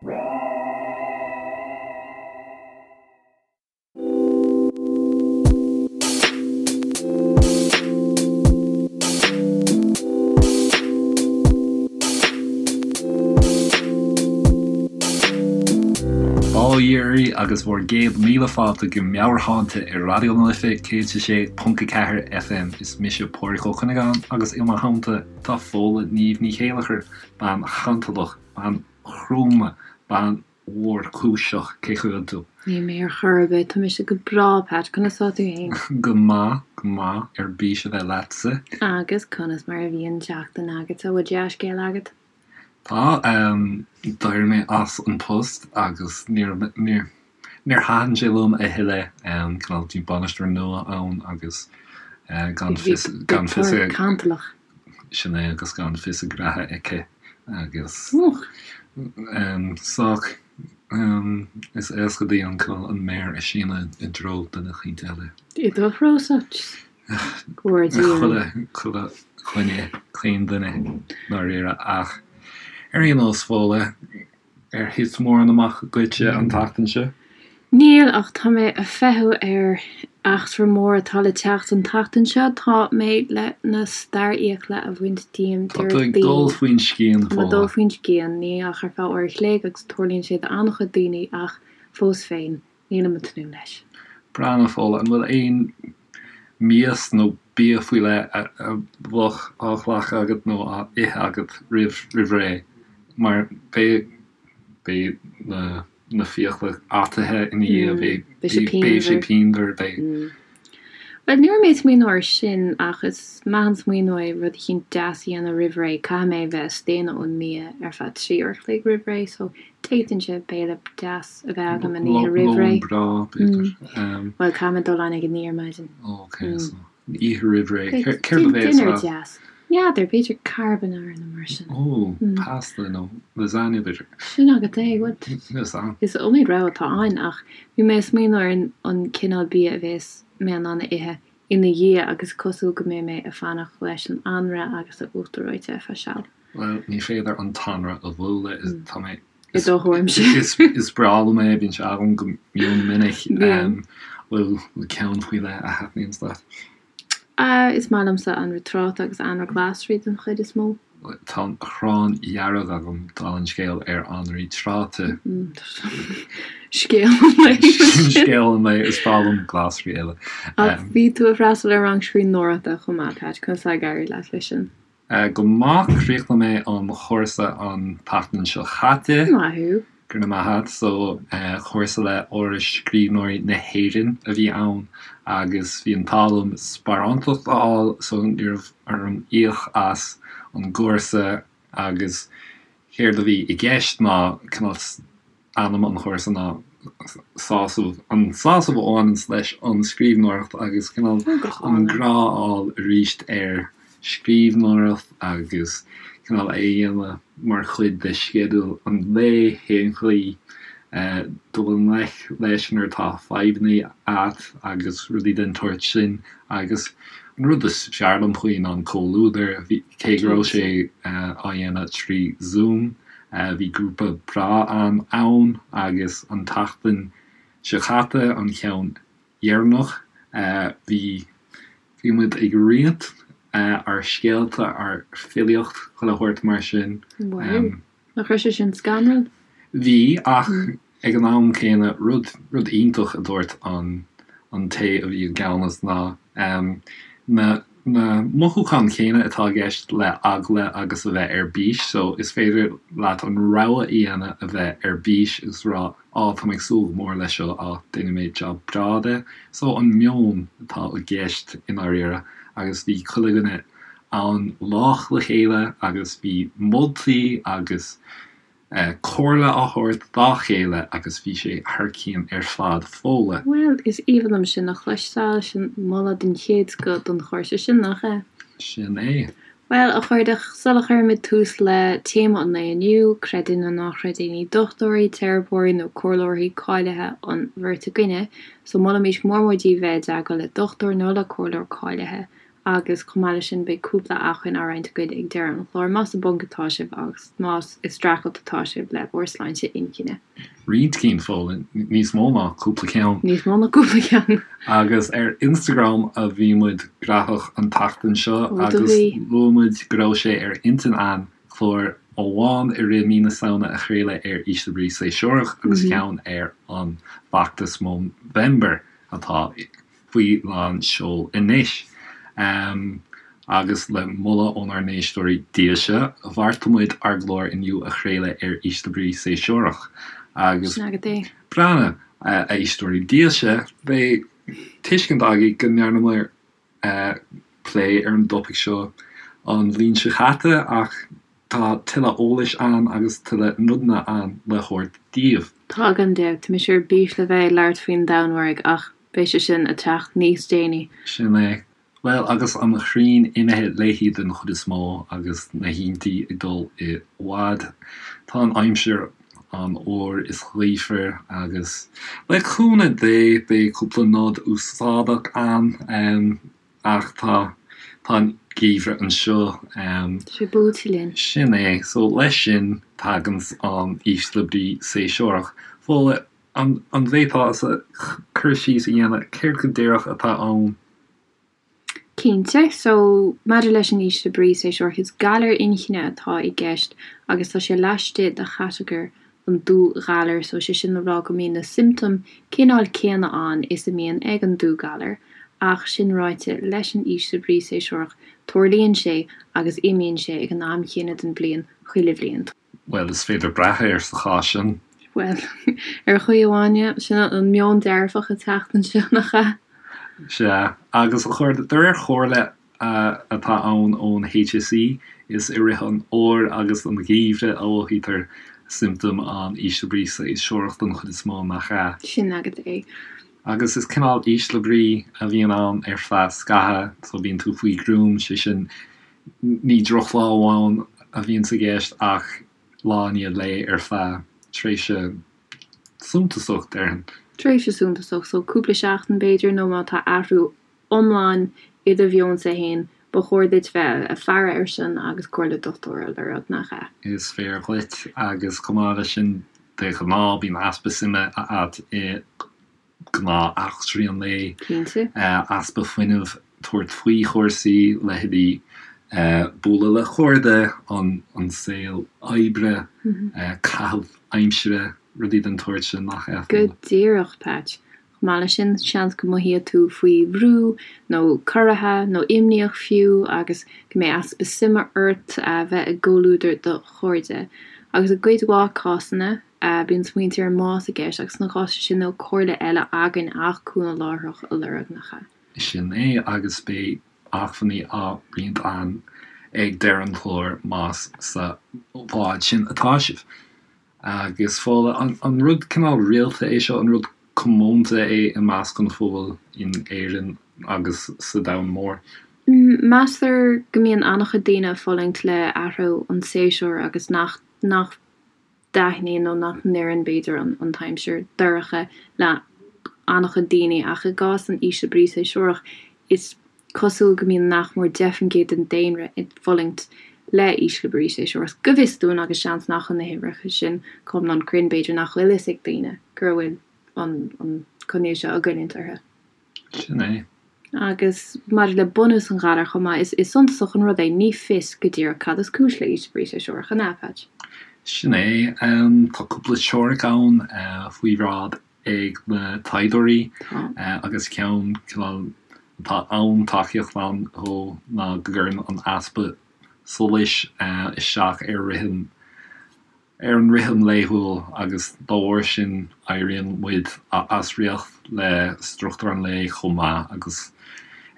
Bail ó Dhia oraibh agus bhur gcéad míle fáilte go Meabhairshláinte ar Raidió na Life 106.4 FM. Is mise Pádraig Ó Cuinneagáin agus i mo theannta tá Fódhla Niamh Ní Chéilleachair, bean chantalach, bean chróna, bean mhórchúiseach, cén chaoi a bhfuil tú? Níl mé ar chor ar bith, tá mise go breá, Pat, conas tá tú fhéin? Go maith, go maith, ar bís a bheith leatsa. Agus conas mar a bhí an tseachtain agatsa, bhfuil dea-scéal agat? Tá, d'éirigh mé as an post agus níor, níor, níor thaitin sé liom a thuilleadh, cineál, bhí bainisteoir nua ann agus gan fios, gan fios a. Cantalach. Sin é agus gan fios a graithe aici agus sách is éasca di an cineál an méar a síneadh i dtreo duine eicínt eile. I do threosa? Chuile, chuile dhuine, chaon duine ndáiríre ach ar aon nós Fódhla, Ar thit mórán amach dhuitse an tseachtain seo? Níl, ach tá mé ag feitheamh ar eachtra mór atá le teacht an tseachtain seo. Tá mé le na starrfhiacla a bhaint díom Tá tú ag dul faoin scian, Tá mé ag dul faoin scian, ní ach ar feadh uair a chloig agus tarlaíonn sé d'an-chuid daoine ach fós féin, nílim ag tnúth leis. Breathnaigh, Fódhla, an bhfuil aon mias nó bia faoi leith a bheadh á ghlacadh agat nó á ithe agat roimh roimh ré? Mar beidh beidh na na fiacla ataithe ina dhiaidh, beidh Beidh sé beidh sé pianmhar. pianmhar, beidh. Bhuel, ní raibh mé ag smaoineamh air sin, ach is maith an smaoineamh é rud eicínt deas a dhéanamh roimh ré. Caithfidh mé bheith ag staonadh ón mbia ar feadh 3 uair a chloig roimh ré, so d'fhéadfainnse béile deas a bheith agam an oíche roimh ré. Lón breá, b'fhéidir. Bhuel, caithfidh mé dul ann ag a 9 ar maidin. Ok, so an oíche roimh ré. Céard a bheas Dinnéar deas. N'fheadar, b'fhéidir carbonara nó mar sin. Ó, pasta nó lasagna b'fhéidir. Sin agat é, bhuel, is iomaí rogha atá ann ach bhí mé ag smaoineamh ar an cineál bia a bheas mé in ann a ithe ina dhiaidh agus cosúil go mbeidh mé ag fanacht leis an anraith agus an uachtar reoite ar feadh seal. Bhuel, ní féidir an t-anraith a bhualadh, tá mé, I do thuairimse. Is breá liom é, bíonn sé agam go mion minic. Bhfuil ceann faoi leith a thaitníonns leat? Is maith liomsa anraith tráta agus anraith glasraí den chuid is mó. Tá an ghráin dhearg agam, dála an scéil, ar anraí tráta. Scéal an lae sin. Scéal an lae, is breá liom glasraí eile. Ach bhí tú ag freastal ar rang scríbhneoireachta chomh maith, Pat, conas tá ag éirí leat leis sin? Go maith, chríochnaigh mé an chúrsa an tseachtain seo chaite. Maith thú. Go raibh maith agat. So, cúrsa le Áras Scríbhneoirí na hÉireann a bhí ann agus bhí an t-ádh liom sparántacht a fháil so ní raibh orm íoc as an gcúrsa agus céard a bhí i gceist ná cineál ainm an chúrsa ná sásamh, an sásamh a bhaineanns leis an scríbhneoireacht agus cineál an grá a fháil arís ar scríbhneoireacht agus cineál é a dhéanamh mar chuid de sceideal an lae, cén chaoi dul i ngleic leis nuair atá fadhbanna a't agus rudaí den tsórt sin agus an rud is fearr liom faoi ná an comhluadar, cé go raibh sé á dhéanamh trí Zoom, bhí grúpa breá ann agus an tseachtain seo caite an ceann dheireanach, bhí bhí muid ag roinnt ár scéalta, ár filíocht, chuile shórt mar sin. Wow. Nach raibh sé sin scanrúil? Bhí, ach ag an am céanna, rud rud iontach a dúirt an an té a bhí i gceannas ná na na mothúcháin chéanna atá i gceist le eagla agus a bheith ar bís, so is féidir leat an rogha a dhéanamh a bheith ar bís agus rá á tá mé ag súil go mór leis seo, á déanfaidh mé job breá de. So an meon atá i gceist i ndáiríre agus bhí chuile dhuine ann lách le chéile agus bhí moltaí agus comhairle á thabhairt dá chéile agus bhí sé thar cionn ar fad Fódhla. Bhuel, is aoibhinn liom sin a chloisteáil, sin moladh den chéad scoth don chúrsa sin, nach ea? Sin é. Bhuel, a chairde, sula chuirimid tús le téama an lae inniu, creid é nó ná creid é, ní dochtúirí, teiripeoirí nó comhairleoirí cáilithe an bheirt againne, so molaimid go mór mór daoibh bheith i dteagmháil le dochtúir nó le comhairleoir cáilithe. Agus chomh maith leis sin beidh cúpla acmhainn á roinnt againn ag deireadh an chláir más i bponc atá sibh agus más ag streachailt atá sibh le bhur sláinte inchinne. Roinnt cinn, Fódhla, níos mó ná cúpla ceann. Níos mó ná cúpla ceann. Agus ar Instagram a bhí muid graitheach an tseachtain seo agus luaigh muid go raibh sé ar intinn a'inn clár amháin i rith mí na Samhna a chraoladh ar ísle brí séasúrach agus ceann ar an bhfeachtas Movember atá faoi lán seoil anois. Agus le moladh ónár n-éisteoirí dílse, bheartaigh muid ár gclár inniu a chraoladh ar ísle brí séasúrach. Agus Sin agat é. breathnaigh, a éisteoirí dílse, beidh tuiscint agaibh go ndearnamar plé ar an dtopaic seo an bhliain seo chaite ach tá tuilleadh eolais ann agus tuilleadh nodanna ann le thabhairt daoibh. Tá gan dabht. Tá mise ar bís le bheith ag labhairt faoin Danmhairg ach beidh sé sin ag teacht níos déanaí. Sin é. Bhuel, agus an ghrian imithe léi den chuid is mó agus na hoícheantaí ag dul i bhfad, tá an aimsir an-fhuar is gaofar agus le cúnamh Dé beidh cúpla nod úsáideach ann ach tá tá an geimhreadh anseo. Tá sé buailte linn. Sin é. So leis sin taganns an ísle brí séasúrach. Fódhla, an bhféadfá cur síos a dhéanamh céard go díreach atá ann? Cinnte. So, maidir leis an ísle brí séasúrach, is galar inchinne atá i gceist agus tá sé laistigh de chatagóir an dúghalair. So, sé sin le rá go mbíonn na siomptóim cineál céanna ann is a mbíonn ag an dúghalar. Ach, sin ráite, leis an ísle brí séasúrach, tarlaíonn sé agus imíonn sé ag an am chéanna den bhliain chuile bhliain. Bhuel, is féidir brath air sa chás sin. Bhuel, ar chaoi amháin, yeah. Sin an meon dearfach ag teacht anseo, nach ea? Sea. Agus a chairde, de réir chomhairle atá ann ón HSE, is i rith an fhómhair agus an gheimhridh a mhothaítear siomptóim an ísle brí séasúrach den chuid is mó, nach ea? Sin agat é. Agus is cineál ísle brí a bhíonn ann ar feadh scaitheamh, so bíonn tú faoi ghruaim, sé sin, Ní drochlá amháin a bhíonns i gceist ach lá i ndiaidh lae ar feadh tréimhse suntasach, déarfainn. Tréimhse suntasach, so cúpla seachtain b'fhéidir, nó má tá athrú iomlán i do mheonsa fhéin, ba chóir duit bheith ag faire air sin agus comhairle dochtúra a lorg, nach ea? Is fíor dhuit, agus chomh maith leis sin, de ghnáth bíonn easpa suime a'at i gnáth-eachtraí an lae, Cinnte. easpa fuinnimh tabhairt faoi chúrsaí, leithéidí bualadh le cairde, an saol oibre, caitheamh aimsire, rudaí den tsórt sin, nach ea? Go díreach, Patch. Chomh maith leis sin, seans go mothaíonn tú faoi bhrú, nó corraithe, nó imníoch fiú, agus go mbeidh easpa suime ort a bheith i gcomhluadar do chairde. Agus i gcuid mhaith cásanna, Bíonn smaointe ar an mbás i gceist agus sna cásanna sin níl comhairle eile againn ach cúnamh láithreach a lorg, nach ea? Sin é, agus beidh acmhainní á roinnt againn ag deireadh an chláir más sa bhád sin atá sibh. Agus Fódhla, an rud cineál rialta é seo, an rud comónta é i measc an phobail in Éirinn agus sa domhan mór? Meastar go mbíonn an-chuid daoine ag fulaingt le athrú an tséasúir agus nach nach dtaitníonn nó nach n-oireann, b'fhéidir, an t-aimsir dorcha le an-chuid daoine, ach i gcás an ísle brí séasúrach, is cosúil go mbíonn nach mór 10% den daonra ag fulaingt le ísle brí séasúrach, go bhfios dúinn, agus seans nach bhfuil na huimhreacha sin go hiomlán cruinn, b'fhéidir nach bhfuil fhios ag daoine go bhfuil an coinníoll seo ag goilliúint orthu. Sin é. Agus maidir le bunús an ghalair chomh maith, is suntasach an rud é, ní fios go díreach cad is cúis le ísle brí séasúrach, an ea, Patch? Sin é. Tá cúpla teoiric ann faoi bhráid ag na taighdeoirí agus ceann cineál atá an-tacaíocht ann dhó ná go gcuireann an easpa solais isteach ar rithim ar an rithim laethúil agus dá bharr sin éiríonn muid as riocht le struchtúr an lae chomh maith agus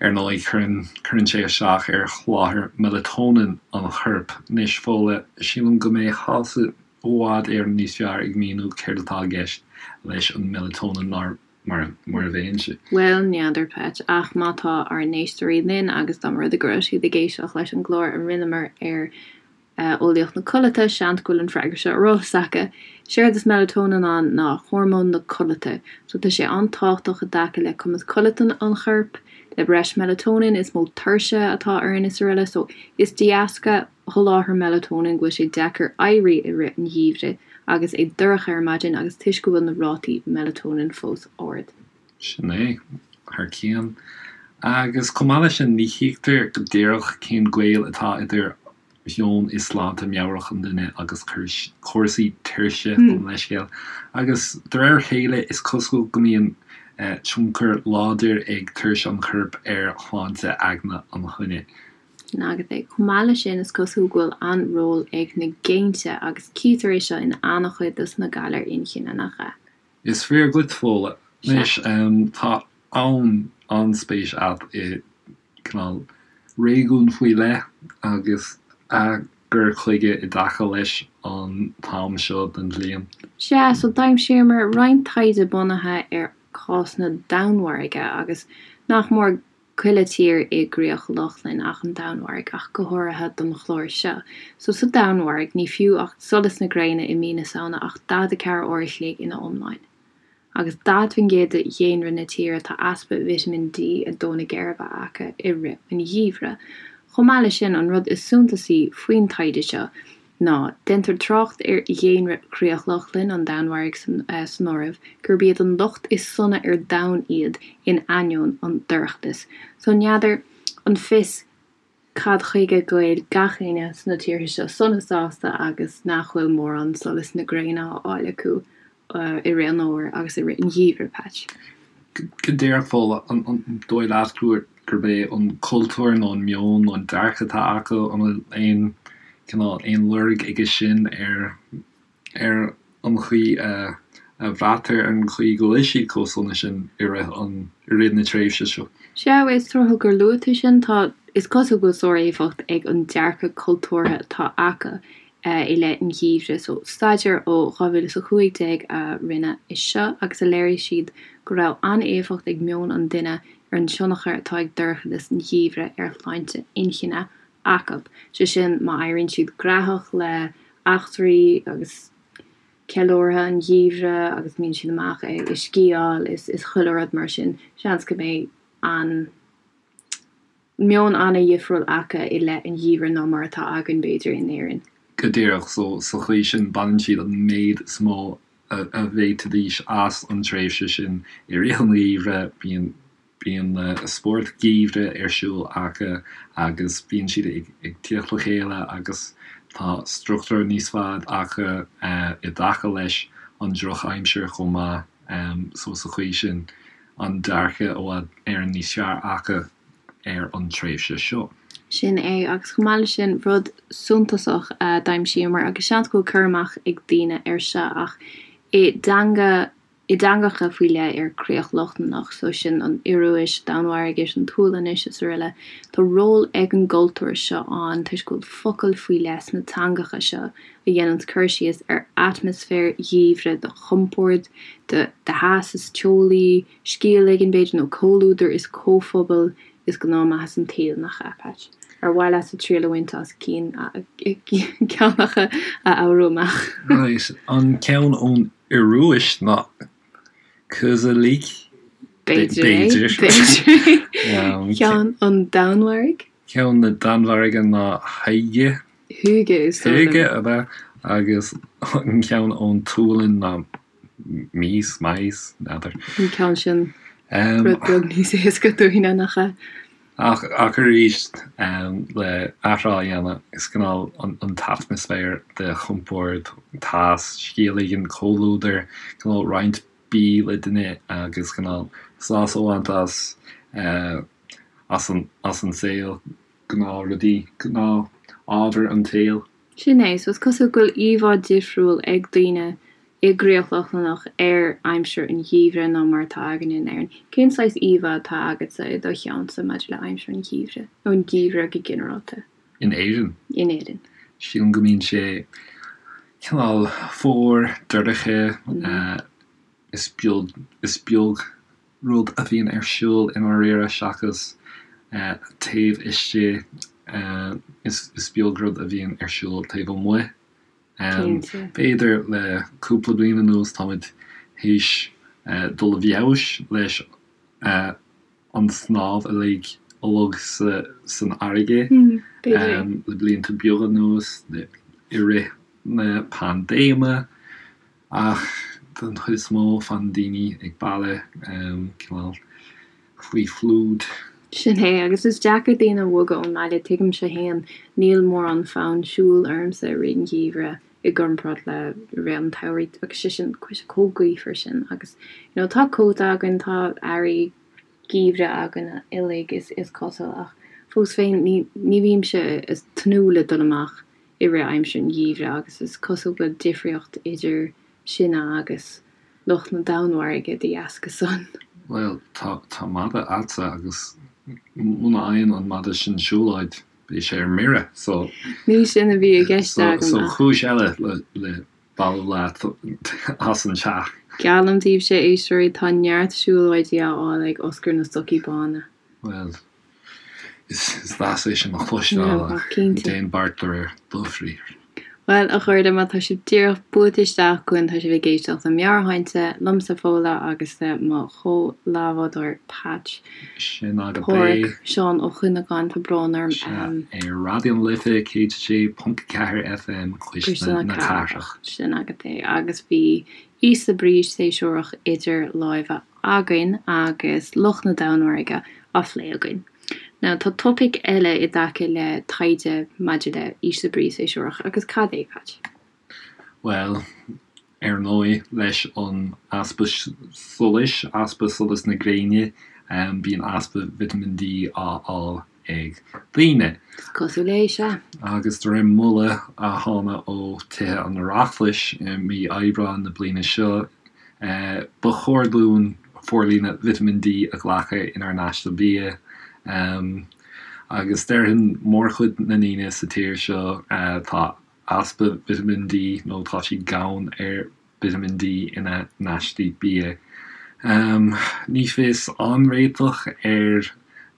ar ndóigh cuireann cuireann sé isteach ar sholáthar meileatóinin an choirp. Anois Fódhla, sílim go mbeifeása i bhfad Éireann níos fearr ag míniú céard atá i gceist leis an meileatóinin ná mar a bheinnse. Bhuel, n'fheadar, Patch, ach má tá ár n-éisteoirí linn agus dá mba rud é go raibh siad ag éisteacht leis an gclár a rinneamar ar eolaíocht na codlata, seans go bhfuil an freagra seo ar eolas acu. Séard is melatonin ann ná hormón na codlata. So tá sé an-tábhachtach i dtaca le cumas codlata an choirp, Le breis melatonin is mó tuirse atá orainn is araile so is de dheasca sholáthar melatonin go bhfuil sé deacair éirí i rith an gheimhridh agus é dorcha ar maidin agus toisc go bhfuil na rátaí melatonin fós ard. Sin é, thar cionn. Agus chomh maith leis sin, ní thuigtear go díreach cén gaol atá idir mheon is sláinte meabhrach an duine agus cúrsaí tuirse, gabh mo leithscéal. Agus de réir a chéile, is cosúil go mbíonn tionchar láidir ag tuirse an choirp ar shláinte aigne an dhuine. Sin agat é. Chomh maith leis sin, is cosúil go bhfuil an-ról ag na géinte, agus cítear é seo in an-chuid dos na galair inchinne, nach ea? Is fíor dhuit, Fódhla. Anois, tá an-spéis agat i gcineál réigiún faoi leith agus a gcur chuige i dtaca leis an t-am seo den bhliain. Sea, so d'aimsíomar roinnt taighde bunaithe ar chás na Danmhairge agus nach mór chuile tír i gCríoch Lochlann ach an Danmhairg, ach go háirithe don chlár seo. So sa Danmhairg, ní fiú ach solas na gréine i mí na Samhna ach 44 uair a chloig ina iomláine. Agus 40% de dhaonra na tíre tá easpa Vitamin D ag dó na geirbe acu i rith an gheimhridh. Chomh maith leis sin, an rud is suntasaí faoin taighde seo ná, déantar trácht ar dhaonra Chríoch Lochlann, an Danmhairg san áireamh, gurb iad an lucht is sona ar domhan iad in ainneoin an dorchadas. So n'fheadar an fios cad chuige go bhfuil gach éinne sna tíortha seo sona sásta agus nach bhfuil mórán solas na gréine á fháil acu i rith an fhómhair agus i rith an gheimhridh, Patch. Go díreach, Fódhla, an dóigh leat gurb é an cultúr nó an meon nó an dearcadh atá acu, an bhfuil aon cineál, aon lorg aige sin ar ar an chaoi a bhraitear ar an chaoi go bhfuil siad chomh sona sin i rith an i rith na tréimhse seo. Sea, is tráthúil gur luaigh tú sin. Tá, is cosúil go bhfuil sár-éifeacht ag an dearcadh cultúrtha atá acu i leith an gheimhridh. So, staidéar ó 2015 a rinneadh é seo agus a léirigh siad go raibh an-éifeacht ag meon an duine ar an tionchar atá ag dorchadas an gheimhridh ar shláinte inchinne acu. Sé sin, má éiríonn siad graitheach le eachtraí agus ceiliúrtha an gheimhridh agus mbíonn siad amach ag sciáil is is chuile rud mar sin, seans go mbeidh an meon an-dhifriúil acu i leith an gheimhridh ná mar atá againn, b'fhéidir, in Éirinn. Go díreach, so sa chaoi sin baineann siad an méid is mó a bhféadfaidís as an tréimhse sin i rith an gheimhridh, bíonn Bíonn spórt geimhridh ar siúl acu agus bíonn siad ag tíocht le chéile agus tá struchtúr níos fearr acu i dtaca leis an drochaimsir chomh maith so sa chaoi sin an dearcadh i bhfad Éireann níos fearr acu ar an tréimhse seo. Sin é, agus chomh maith leis sin, rud suntasach a d'aimsíomar, agus seans go bhfuil cur amach ag daoine air seo, ach i dteanga i dteangacha faoi leith ar Chríoch Lochlannach, so sin an Ioruais, Danmhairgis, an tSualainnis is araile. Tá ról ag an gcultúr seo ann toisc go bhfuil focail faoi leith sna teangacha seo a dhéananns cur síos ar atmaisféar gheimhridh de chompord, de theas is teolaí, scéal éigin b'fhéidir, nó comhluadar is comhphobal is gnáthmhaitheas an tsaoil, nach ea, Patch? Ar mhaith leatsa triail a bhaint as cinn, ceann acu a fhoghrú amach? Right, an ceann ón Ioruais ná Koselig? B'fhéidir é, b'fhéidir é. Ceann an Danmhairg? Ceann na Danmhairge ná Hygge. Hygge is dóigh liom. Hygge, ab ea? Agus an ceann ón tSualainn ná Mys, Mais, n'fheadar. An ceann sin rud beag níos éasca dúinne, nach ea? Ach arís, le athrá a dhéanamh, is cineál an t-atmaisféar de chompord, teas, scéal éigin, comhluadar, cineál roinnt bídh le duine agus cineál sásamh a bhaint as, as an, as an saol, gnáthrudaí, gnáth-ábhar an tsaoil. Sin é, so is cosúil go bhfuil íomhá difriúil ag daoine i gCríoch Lochlannach ar aimsir an gheimhridh ná mar atá againne in Éirinn. Cén saghas íomhá atá agatsa i do cheannsa maidir le aimsir an gheimhridh, nó an geimhreadh go ginearálta? In Éirinn? In Éirinn. Sílim go mbíonn sé cineál fuar, dorcha, is beag, is beag rud a bhíonn ar siúl i ndáiríre seachas taobh istigh, is beag rud a bhíonn ar siúl taobh amuigh. Cinnte. B'fhéidir le cúpla bliain anuas táimid théis dul i bhfeabhas leis. An snámh uilig uilig san fharraige le blianta beaga anuas, i rith na paindéime, ach den chuid is mó fanann daoine ag baile, cineál faoi chlúid. Sin é, agus is deacair daoine a bhogadh ón mbaile, tuigimse fhéin, níl mórán fonn siúil ormsa i rith an gheimhridh i gcomparáid le rith an tsamhraidh, agus sé sin, tá sé chomh gaofar sin, agus you know tá cóta againn, tá earraí geimhridh againn uilig is cosúil, ach fós féin ní ní bhímse ag tnúth le dul amach i rith aimsir an gheimhridh agus is cosúil go bhfuil difríocht idir sinne agus lucht na Danmhairge de dheasca san. Bhuel, tá tá madadh a'dsa agus muna fhaigheann an madadh sin siúlóid beidh sé ar mire so. Ní sin a bhí i gceist agam ach. So cúis eile le le bailiú leat as an teach. Geallaim daoibhse, a éisteoirí, tá neart siúlóidí á fháil ag Oscar na Stocaí Bána. Bhuel, is deas é sin a chloisteáil ach déan beart de réir do bhriathair. Bhuel, a chairde, má tá sibh díreach buailte isteach chugainn, tá sibh ag éisteacht le Meabhairshláinte, liomsa Fódhla agus le mo chomh-leathbhádóir Patch. Sin agat é. Páraic Seán Ó Cuinneagáin, tá brón orm. Sea, ar Raidió na Life 106.4 FM, Cuisle na Cathrach. Sin agat é. Agus bhí ísle brí séasúrach idir láimhe againn agus lucht na Danmhairge á phlé againn. Now, tá topaic eile i dtaca le taighde maidir le ísle brí séasúrach, agus cad é, Patch? Bhuel, Ar ndóigh, leis an easpa solais, easpa solas na gréine, bíonn easpa Vitamin D á fháil ag daoine. Is cosúil é, sea. Agus de réir moladh a thána ó Tithe an Oireachtais i mí Aibreáin na bliana seo, ba chóir dúinn forlíonadh Vitamin D a ghlacadh inár n-aiste bia. Agus déarfainn mórchuid na ndaoine sa tír seo, tá easpa Vitamin D nó tá siad gann ar Vitamin D ina n-aistí bia. Ní fios an réiteach ar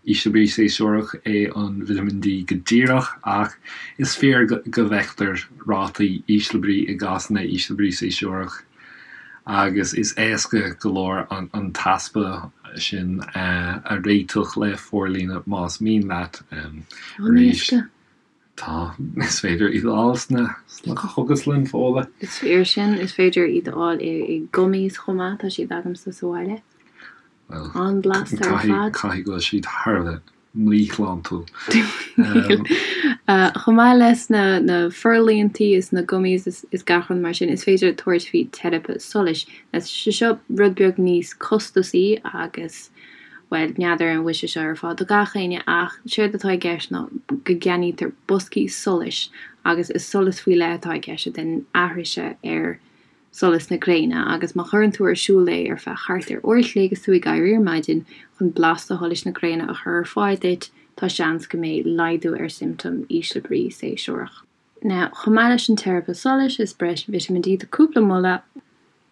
ísle brí séasúrach é an Vitamin D go díreach ach is fíor go bhfeictear rátaí ísle brí i gcásanna ísle brí séasúrach agus is éasca go leor an t-easpa sin a réiteach le forlíonadh más mian leat. Arís. Tá, is féidir iad a fháil sna sna cógaslanna, Fódhla. Is fíor sin, is féidir iad a fháil i i gummies chomh maith, tá siad agamsa sa bhaile. Bhuel, An-bhlasta ar fad. caithfidh go bhfuil siad thar a bheith míshláintiúil. Níl. Chomh maith leis na na forlíontaí is na gummies is is gach rud mar sin, is féidir tabhairt faoi teiripe solais. Tá sé seo rud beag níos costasaí agus Bhuel, n'fheadar an bhfuil sé seo ar fáil do gach éinne ach séard atá i gceist ná go gceannaítear boscaí solais agus is solas faoi leith atá i gceist a dhéanann aithris ar solas na gréine agus má chuireann tú ar siúl é ar feadh thart ar uair a chloig is tú ag éirí ar maidin chun blasta sholais na gréine a chur ar fáil duit, tá seans go mbeidh laghdú ar siomptóim ísle brí séasúrach. Now, chomh maith leis an teiripe solais is breis Vitamin D tá cúpla moladh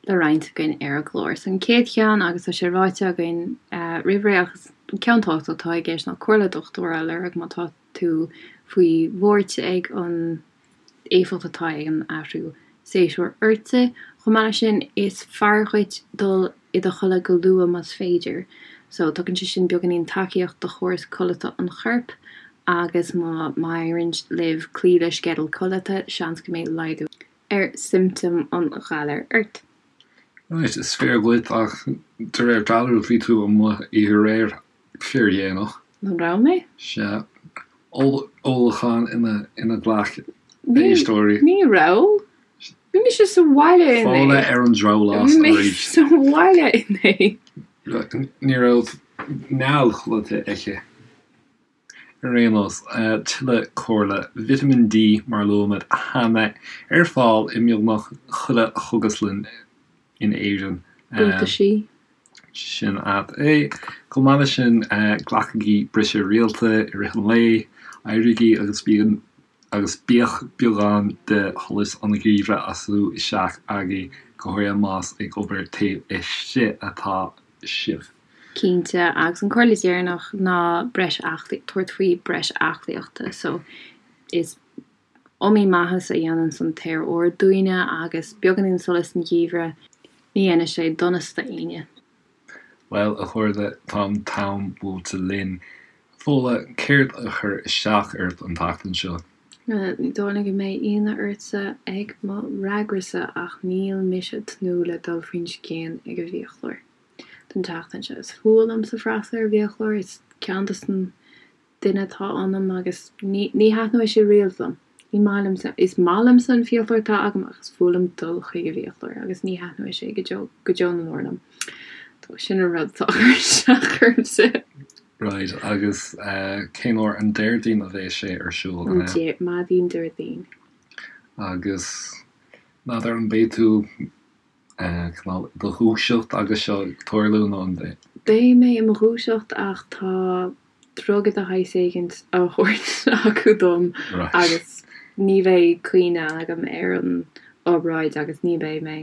le roinnt againn ar an gclár. So an chéad cheann, agus tá sé ráite againn roimh ré ach is ceann tábhachtach atá i gceist ná comhairle dochtúra a lorg má tá tú faoi bhuairt ag an éifeacht atá ag an athrú séasúir ortsa. Chomh maith leis sin, is fearr dhuit dul i do chodladh go luath más féidir. So, tugann sé sin beagáinín tacaíocht do chóras codlata an choirp agus má má éiríonn libh cloí le sceideal codlata, seans go mbeidh laghdú ar siomptóim an ghalair ort. Right, is fíor dhuit ach de réir dealraimh bhí tú amuigh oíche aréir fíordhéanach. An raibh mé? Sea. Ólachán ina ina ghlac éisteoirí. Ní raibh. Bhí mise sa bhaile inné. Fódhla ar an drabhlás arís. Bhí mé sa bhaile inné. Ní raibh néal codlata aici. Ar aon nós, tuilleadh comhairle, Vitamin D, mar a luaigh muid cheana, ar fáil i mbeagnach chuile chógaslann in Éirinn. Buataisí. Sin agat é. Chomh maith leis sin, glacaigí briseadh rialta i rith an lae, éirígí agus bíonn agus bíodh beagán de sholas an gheimhridh á sú isteach agaibh, go háirithe más ag obair taobh istigh atá sibh. Cinnte, agus an comhairle dheireanach ná breis aclaí, tabhairt faoi breis aclaíochta. So, is iomaí maitheas a dhéananns an t-aer úr dúinne agus beagáinín solais san gheimhreadh, ní dhéanfaidh sé donas do éinne. Bhuel, a chairde, tá an t-am buailte linn. Fódhla, céard a chuir isteach ort an tseachtain seo? Ní dóigh liom go mbeidh ionadh ortsa ag mo fhreagrasa ach níl mise ag tnúth le dul faoin scian ag an bhfiaclóir don tseachtain seo. Is fuath liomsa freastal ar an bhfiaclóir, is ceann des na duine atá ionam agus ní ní thaitneoidh sé riamh liom. Ní maith liomsa, is maith liomsa an fiaclóir atá agam ach is fuath liom dul chuig an bhfiaclóir agus ní thaitneoidh sé go deo go deo na ndeor liom. So sin an rud atá ag cur isteach ormsa. Right, agus cén uair an Déardaoin a bheas sé ar siúl, an ea? Maidin Déardaoin. Agus n'fheadar an mbeidh tú cineál i do dhúiseacht agus seo ag tarlú nó an mbeidh? Beidh mé i mo dhúiseacht ach tá druga de shaghas éigint á thabhairt acu dom agus ní bheidh cuimhne agam ar an obráid agus ní bheidh mé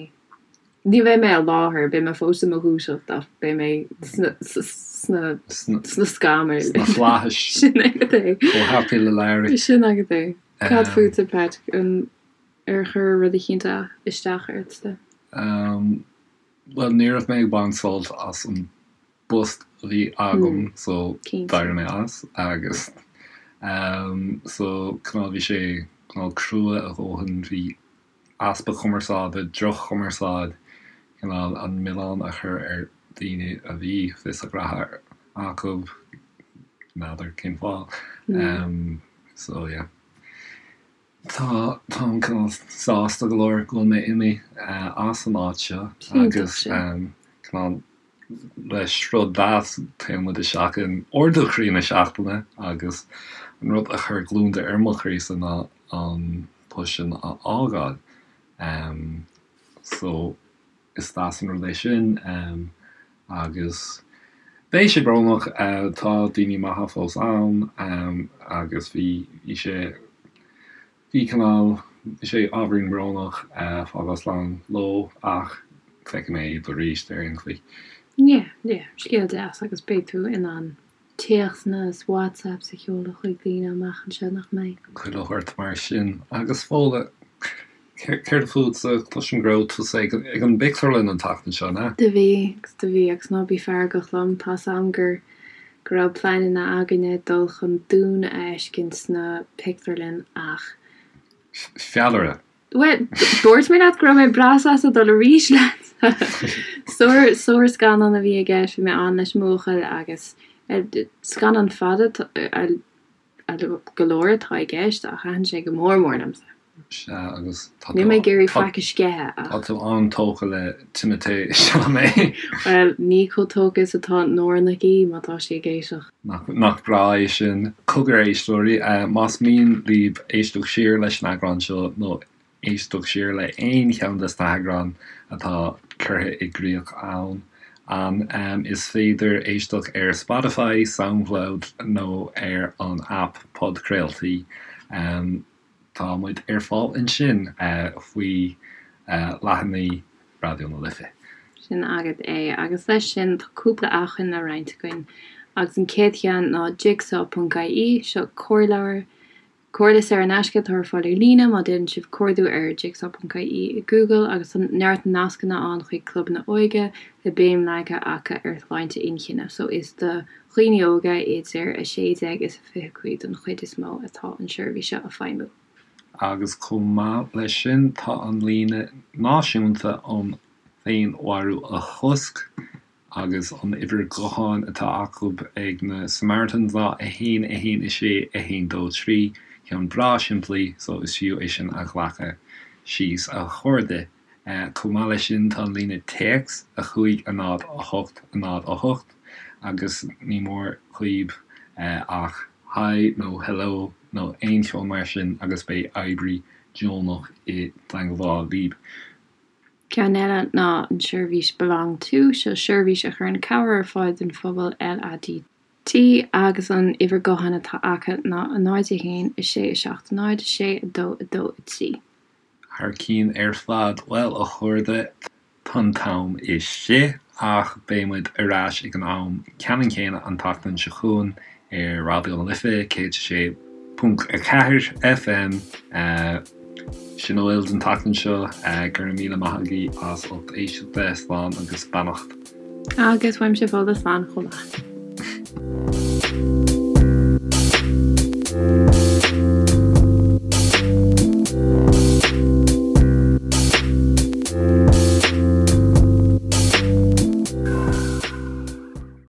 Ní bheidh mé i láthair, beidh mé fós i mo dhúiseacht ach beidh mé sna, sna, sna scamaill. Sna flaithis. Sin agat é. Chomh happy le Larry. Sin agat é. Cad fútsa, Pat? An, ar chuir rud eicínt isteach ortsa? Bhuel, ní raibh mé ag baint sult as an bpost a bhí agam so d'éirigh mé as agus so cineál bhí sé cineál crua a dhóthain, bhí easpa cumarsáide, droch-chumarsáid, cineál an milleán a chur ar daoine a bhí fios a ngraithe acu, n'fheadar cén fáth. So yeah. Tá, táim cineál sásta go leor go bhfuil mé imithe as an áit seo agus cineál le sruth deas téann muid isteach in ardú croí na seachtaine agus an rud a chuir gliondar ar mo chroísa ná an post sin a fhágáil. So is deas an rud é sin agus beidh sé brónach, tá daoine maithe fós ann agus bhí, bhí sé, bhí cineál, bhí sé ábhairín brónach fágáil slán leo ach feicfidh mé iad arís ar aon chaoi. Yeah, yeah, scéal deas agus beidh tú in ann téacsanna is WhatsApps a sheoladh chuig daoine amach anseo, nach mbeidh? Chuile shórt mar sin. Agus Fódhla, céard fútsa? Cloisim go raibh tusa ag an bpictiúrlann an tseachtain seo, an ea? Do bhí, agus do bhí, agus ná bí feargach liom, tá's a'm gur go raibh pleananna againne dul chun Dune a fheiscint sna pictiúrlann ach. Feallaire. Bhuel, dúirt mé leat go raibh mé breá sásta dul arís leat. Sár, sárscannán a bhí i gceist, bhí mé ann leis an mbuachaill agus scannán fada go leor atá i gceist ach thaitin sé go mór mór liomsa. Sea, agus tá tú. Níl mé ag iarraidh faic a sceitheadh ach. Tá tú an-tógtha le Timothée Chalamet. Bhuel, ní chomh tógtha is atá Nóra Nic Aoidh má tá sí ag éisteacht. Nach breá é sin. Cogar a éisteoirí, más mian libh éisteacht siar leis an eagrán seo nó éisteacht siar le aon cheann des na heagráin atá curtha i gcrích ann, an, is féidir éisteacht ar Spotify, Soundcloud nó ar an aip podchraoltaí. Tá muid ar fáil ansin faoi leathanaigh Raidió na Life. Sin agat é. Agus leis sin, tá cúpla acmhainn le roinnt againn. Agus an chéad cheann ná Jigsaw ponc ie. Seo comhairleabhar, comhairle saor in aisce atá ar fáil ar líne má déanann sibh cuardú ar Jigsaw ponc ie i Google agus tá neart nascanna ann chuig clubanna óige le béim leagtha acu ar shláinte inchinne. So is do dhaoine óga idir 16 is 25 don chuid is mó atá an seirbhís seo ag feidhmiú. Agus chomh maith leis sin tá an líne náisiúnta um féinmharú a chosc agus an uimhir ghutháin atá acu ag na Samaritans ná 1 1 6 1 2 3, ceann breá simplí so is fiú é sin a ghlacadh síos a chairde. Chomh maith leis sin tá an líne téacs 5 0 8 0 8 agus ní mór dhaoib ach Hi nó Hello nó aon cheo mar sin agus beidh oibrí deonach i dteangmháil libh. Ceann eile ná an seirbhís Belong To, seo seirbhís a chuireann cabhair ar fáil don phobal LADT agus an uimhir gutháin atá acu ná 0 1 6 7 0 6 2 2 3. Thar cinn ar fad. Bhuel, a chairde, tá an t-am istigh, ach beidh muid ar ais ag an am ceannann céanna an tseachtain seo chugainn ar Raidió na Life 106.4 FM. Sin a bhfuil don tseachtain seo. Go raibh míle maith agaibh as ucht éisteachta. Slán agus beannacht. Agus uaimse Fódhla slán chomh maith.